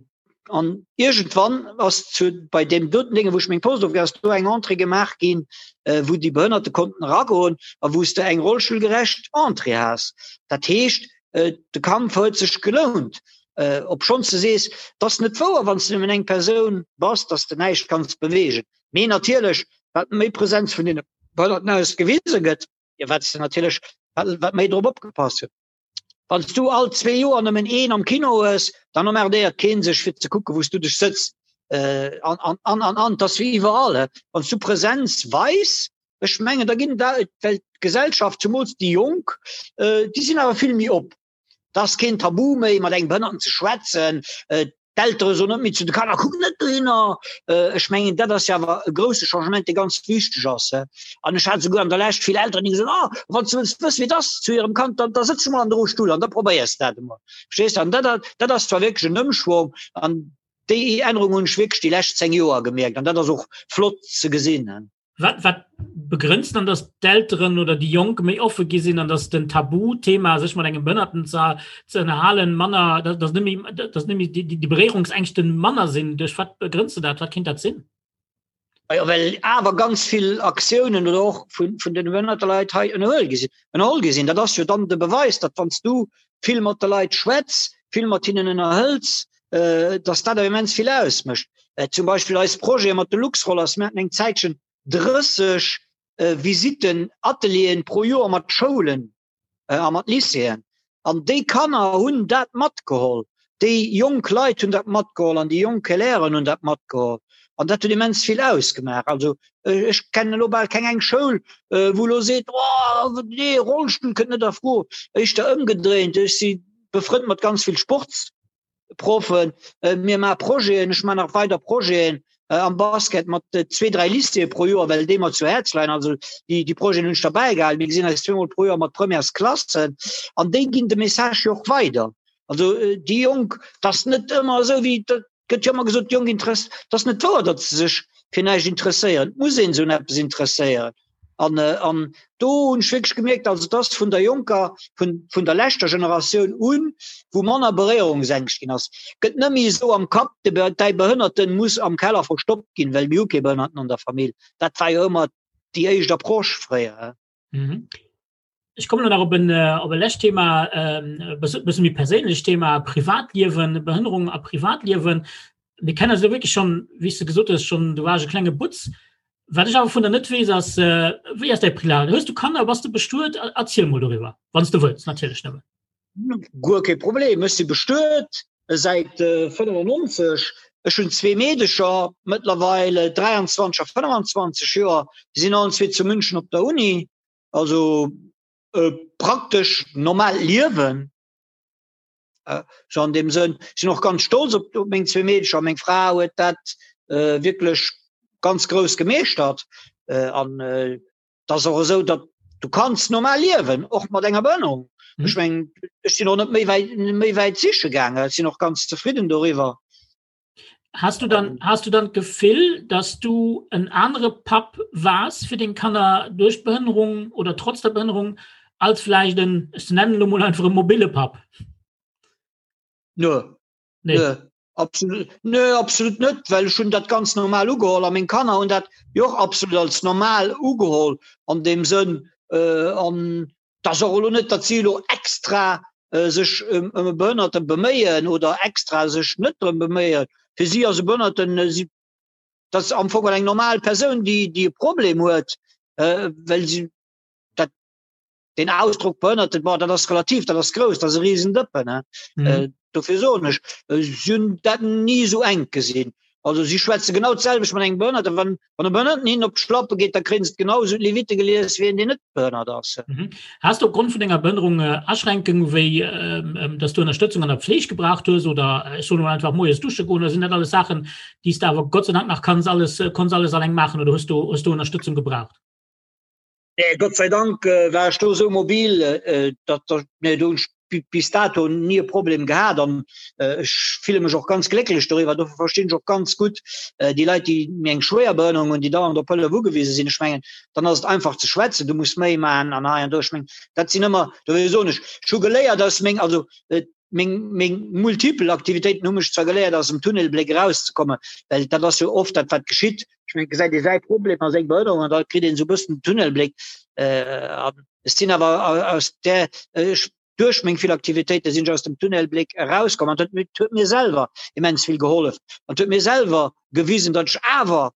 an iergendwann ass zu bei deem doten Dénge wou ech meng Post ofginn ass do eng Entrée gemaach ginn äh, wou déi Behënnerte konnten eragoen a wou s de eng rollstullgerecht Entrée has. Dat heescht äh, de Kampf huet sech gelount. Äh, obschonns de sees, 't ass net wouer, wann s de nëmmen eng Persoun bass, dass de näischt kanns beweegen. Mee natierlech, wat méi Präsenz vun deene Behënnerten aus gewise gëtt, jo wat s de natierlech, wat, wat méi drop opgepasst gëtt. Wann s du all zwee Joer nëmmen een am Kino hues, dann emmerdéiert keen sech fir ze kucken, wou s du dech sëtz. Äh, an, an, an, an, an, 't ass wéi iwwerall, he. Wann s du Präsenz weis, ech mengen, da ginn da, well d'Gesellschaft, zumools déi Jonk, äh, déi sinn awer vill méi op. Et ass keen Tabu méi, mat engem Behënnerten ze schwätzen. D'Eltere soen net méi zu de Kanner, Kuck net dohinner! Ech mengen, dat ass jo awer e grousse Changement, dee ganz wichteg ass. An ech hat esouguer an der Lescht vill Elteren, déi gesot hunn, Ah, wann s du wëlls wëssen, wéi et ass zu hirem Kand, da da sëtz dech emol an de Rollstull an da probéiers de dat emol. Verstees de? An dat, dat ass zwar wierklech en Ëmschwong an déi Ännerung hunn ech wierklech déi lescht 10 Joer gemierkt an dat ass och flott ze gesinn. Wat, wat begrënnst dann, dass d'Elteren oder déi Jonk méi offe gi sinn an dass den Tabuthema, sech mat engem Behënnerten ze, ze ënnerhalen, manner, dass, dass net méi, dass net méi déi, déi Beréierungsängschten manner sinn? Duerch wat begrënnst du dat? Wat kéint dat sinn? Jo, well awer ganz vill Aktiounen oder och vun, vun den behënnerte Leit hei ënnerhuel gi sinn, ënnerholl gi sinn. Dat ass jo dann de Beweis, datt wann s du vill mat de Leit schwätz, vill mat hinnen ënnerhëls, dass dat awer immens vill ausmécht. Zum Beispill eis Projete mat de Luxrollers, mir haten eng Zäitchen 30 Visitten, Atelieren pro Joer mat Schoulen a mat Lycéeën. An déi Kanner hunn dat matgeholl, déi jonk Leit hunn dat matgeholl an déi jonk Élèven hunn dat matgeholl. An dat huet immens vill ausgemaach. Also ech kennen elo bal keng eng Schoul, wou elo seet, oh nee, Rollstull kënnt net a Fro. Éischter ëmgedréint, ech si befrënnt mat ganz vill Sports. Proffen, mir maache Projeten, ech maachen nach weider Projeten am Basket mat zwee, dräi Lycéeë pro Joer, well déi mer zu Häerz leien. Also déi, déi Projeten hunn ech derbäi gehalen. Mir gesinn eis zweemol pro Joer mat Premièresklassen an déi ginn de Message jo och weider. Also déi Jonk, et ass net ëmmer esou wéi, et gëtt jo ëmmer gesot, déi Jonk interess, et ass net wouer, datt se sech fir näischt interesséieren. Et muss een se un eppes interesséieren. An, an do hunn ech wierklech gemierkt, also et ass vun der jonker, vun, vun der leschter Generatioun un, wou manner Beréierungsängscht ginn ass. Gëtt net méi esou am Kapp, de, däi Behënnerten muss am Keller verstoppt ginn, well mir hu kee Behënnerten an der Famill. Dat war jo ëmmer déi éischt Approche fréier. Mhm. Ech kommen nach op en, äh, op e lescht Thema, ähm, e bësse méi perséinlecht Thema, Privatliewen, Behënnerung a Privatliewen. Mir kennen eis elo wierklech schonn, wéi s de gesot hues, schonn, du waars e klenge Butz. Wat ech awer vun der net weess, ass, äh, wéi ass däi Prilat? Hues du Kanner, bass du bestuet? Erziel mol doriwwer, wann s du wëlls, natierlech nëmmen. Guer kee Problem, ech si bestuet säit 95. Ech hunn zwee Meedecher mëttlerweil, 23 a 25 Joer. Déi sinn allen zwee zu München op der Uni. also e praktesch normaalt Liewen. Sou an deem Sënn. Ech sinn och ganz stolz op op meng zwee Meedercher. Meng Fra huet dat wierklech ganz grouss gemeeschtert. An et ass och esou, datt du kanns normal liewen, och mat enger Behënnerung. Ech mengen, ech sinn och net méi wäit méi wäit siche gaangen. Ech sinn och ganz zefridden doriwwer. Hast du dann hast du dann d'Gefill, dass du en anere Papp waars fir deng Kanner duerch d'Behënnerung oder trotz der Behënnerung als vläicht en, ech nennen elo mol einfach e mobile Papp? Nö. Nee. Nö. Absolut, nö, absolut net, well ech hunn dat ganz normal ugeholl a meng Kanner hunn dat jo och absolut als normal ugeholl an deem Sënn äh, an Et ass och elo net, datt si elo extra sech ëm e Behënnerte beméien oder extra sech net drëm beméien. Fir si ass e Behënnerten, si, dat ass am Fong eng normal Persoun, déi, déi e Problem huet, well si dat, deen Ausdrock Behënnerten, bon, dat ass relativ, dat ass grouss, dat ass e Risendëppen. Dofir soen ech, si hunn dat ni esou enk gesinn. Also si schwätze genau d'selwecht mat engem Behënnerten. Wann, wann e Behënnerten hinnen op d'Schlappe geet, da kréien se et genau esou d'Levitte gelies wéi een, deen net behënnert ass. Mhm. Has du opgrond vun denger Behënnerung äh, Aschränkungen, wéi ähm, ähm, dass du Ënnerstëtzung an der Pfleg gebraucht hues oder äh, ech soen einfach moies dusche goen, oder sinn dat alles Saachen, déi s de awer Gott sei Dank nach kanns alles, äh, konns alles alleng maachen oder hues du, hues du Ënnerstëtzung gebraucht? Nee, Gott sei Dank äh, war ech do esou mobil, äh, datt, datt, nee, do hunn ech bis dato nie e Problem gehat an äh, ech fille mech och ganz glécklech doriwwer. Dofir verstinn ech och ganz gutt äh, déi Leit, déi méi eng schwéier Behënnerung hunn, déi dauernd op Hëllef ugewise sinn. Ech mengen, dann ass et einfach ze schwätzen, du muss méi maachen an hei an do. Ech mengen, dat sinn ëmmer, dofir soen ech, ech hu geléiert aus meng, also äh, meng, meng multipel Aktivitéiten hu mech zwar geléiert aus dem Tunnelbléck erauszekommen, well dat ass jo oft dat wat geschitt. Ech mengen, gesäit ee säi Problem a seng Behënnerung an da kritt een esou e bëssen den Tunnelbléck. Äh, an ech sinn awer aus där, ech, duerch meng vill Aktivitéite sinn ech aus dem Tunnelbléck erauskomm an dat huet mir selwer immens vill gehollef an huet mir selwer gewisen, datt ech awer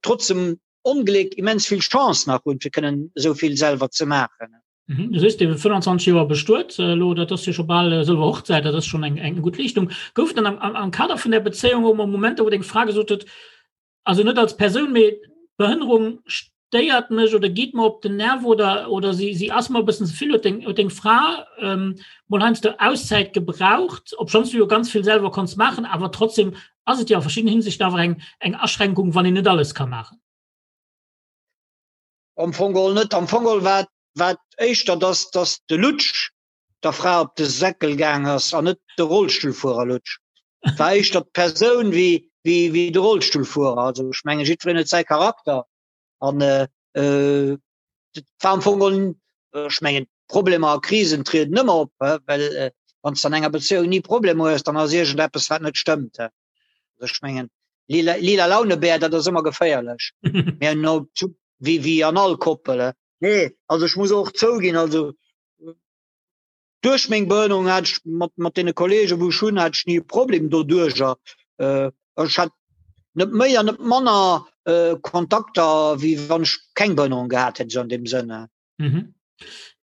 trotz dem Ongléck immens vill Chance nach hunn, fir kënnen esou vill selwer ze maachen. Mhm. Du sees, dir 25 Joer bestuet elo, dat ass jo scho bal sëlwer Hochzäit, dat ass schonn eng eng gutt Leeschtung. Gouf dann am, am, am Kader vun der Bezéiung och mol Momenter, wou deng Fra gesot huet, also net als Persoun, mee d'Behënnerung stéiert mech oder geet mer op den Nerv oder, oder si, si ass mer e bëssen ze vill, huet deng, huet deng Fra ähm, mol heiansdo Auszäit gebraucht, obschonns du jo ganz vill selwer konns maachen, awer trotzdem ass et jo a verschiddenen Hinsichten awer eng, eng Aschränkung, wann een net alles ka maachen. Am Fong geholl net. Am Fong geholl war war éischter, dass, dass de Lutsch der Fra op de Säckel gaang ass an net de Rollstullfuerer Lutsch. War éischter d'Persoun wéi, wéi, wéi de Rollstullfuerer. Also ech menge jiddwereen huet säi Charakter an äh, äh, war am Fong geholl, ech mengen Problemer a Krisen trieden ëmmer op, well äh, wann s an enger Bezéiung ni Problemer hues, dann ass iergendeppes wat net stëmmt. Also ech mengen lila, lila Launebär, dat ass ëmmer geféierlech. Mä no, wéi, wéi an all Koppel. Nee, also ech muss och zouginn, also duerch meng Behënnerung hat ech mat, mat deene Kollegen, wou ech hunn, hat ech ni e Problem doduercher. Äh, ech hat net méi an net manner äh, Kontakter, wéi wann ech keng Behënnerung gehat hätt, esou an deem Sënn. Mhm.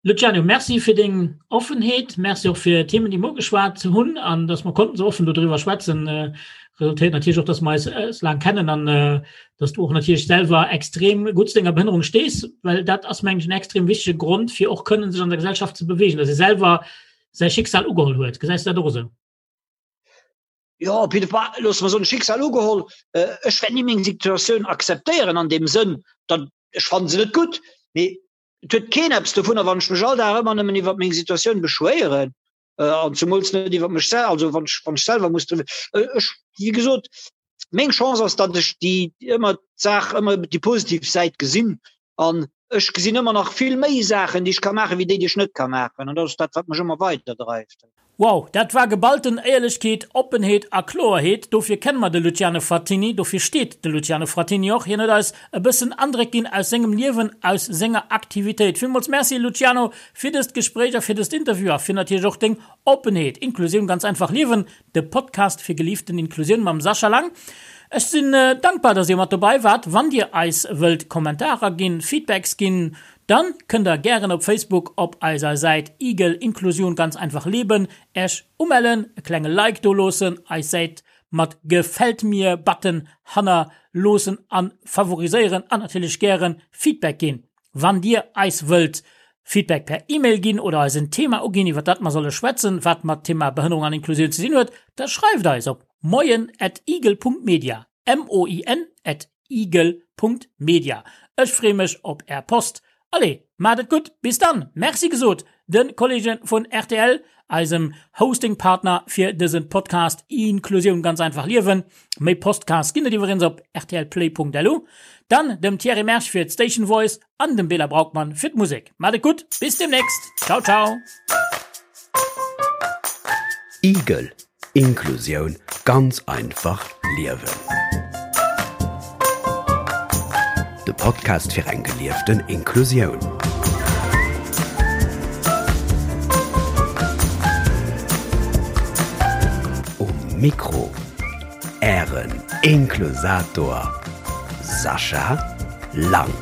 Luciano, Merci fir deng Offenheet, Merci och fir d'Themen, déi mer ugeschwat hunn an dass mer konnten esou offen dodriwwer schwätzen. Äh, resultéiert natierlech och, dass mer eis äh, laang kennen an äh, dass du och natierlech selwer extrem gutt zu denger Behënnerung stees, well dat ass mengen ech en extrem wichtege Grond fir och kënnen sech an der Gesellschaft ze bewegen, dass ee selwer säi Schicksal ugeholl huet. Gesäis du dat och esou? Jo, op jidde Fall, loosse mer soen, Schicksal ugeholl. Äh, ech wäert ni meng Situatioun akzeptéieren an deem Sënn, datt ech fannen se net gutt, mee et huet keen eppes dovunner, wann ech mech all Dag ëmmer nëmmen iwwer meng Situatioun beschwéieren äh, an zumools net iwwer mech sel also wann ech, wann ech selwer muss drüwer äh, ech, wéi gesot, meng Chance ass, datt ech déi ëmmer d'Saach ëmmer déi positiv Säit gesinn an ech gesinn ëmmer nach vill méi Saachen, déi ech ka maachen, wéi déi, déi ech net ka maachen an dat ass dat, wat mech ëmmer weiderdreift. Wow, dat war geballten Éierlechkeet, Oppenheet a Kloerheet. Dofir kenne mer de Luciano Frattini, dofir steet de Luciano Frattini och. Hien huet eis e bëssen Andréck ginn aus sengem Liewen, aus senger Aktivitéit. Villmools Merci Luciano fir dëst Gespréich a fir dëst Interview a fir natierlech och deng Oppenheet. Inklusioun ganz einfach liewen, de Podcast fir gelieften Inklusioun mam Sascha Lang. Ech sinn dankbar, dass dir mat dobei waart. Wann dir eis wëllt Kommentarer ginn, Feedbacks ginn, Dann kënnt der gären op Facebook op eiser Säit Igel Inklusion ganz einfach leben Äech umellen, e klenge Like do loossen, eis Säit mat Gefällt mir Button hanner loossen an favoriséieren an natierlech gären Feedback ginn. Wann Dir eis wëllt Feedback per E-Mail ginn oder eis en Thema uginn, iwwer dat mer solle schwätzen, wat mat Thema Behënnerung an Inklusioun ze dinn huet, da schreift eis op moien at igel Punkt media, M-O-I-N at igel Punkt media. Ech freeë mech op Är Post. Allez, maacht et gutt, bis dann! Merci gesot de Kollege vun rtl, eisem Hosting-Partner fir dëse Podcast Inklusioun ganz einfach liewen. Méi Postcasts ginn et iwwregens op rtlplay.lu. Dann dem Thierry Mersch fir d'Station Voice an dem Bela Braukmann fir d'Musek. Maacht et gutt, bis demnächst! Ciao, ciao! Igel, Inklusioun ganz einfach liewen. De Podcast fir eng gelieften Inklusioun. Um Mikro Ären Inklusator Sascha Lang.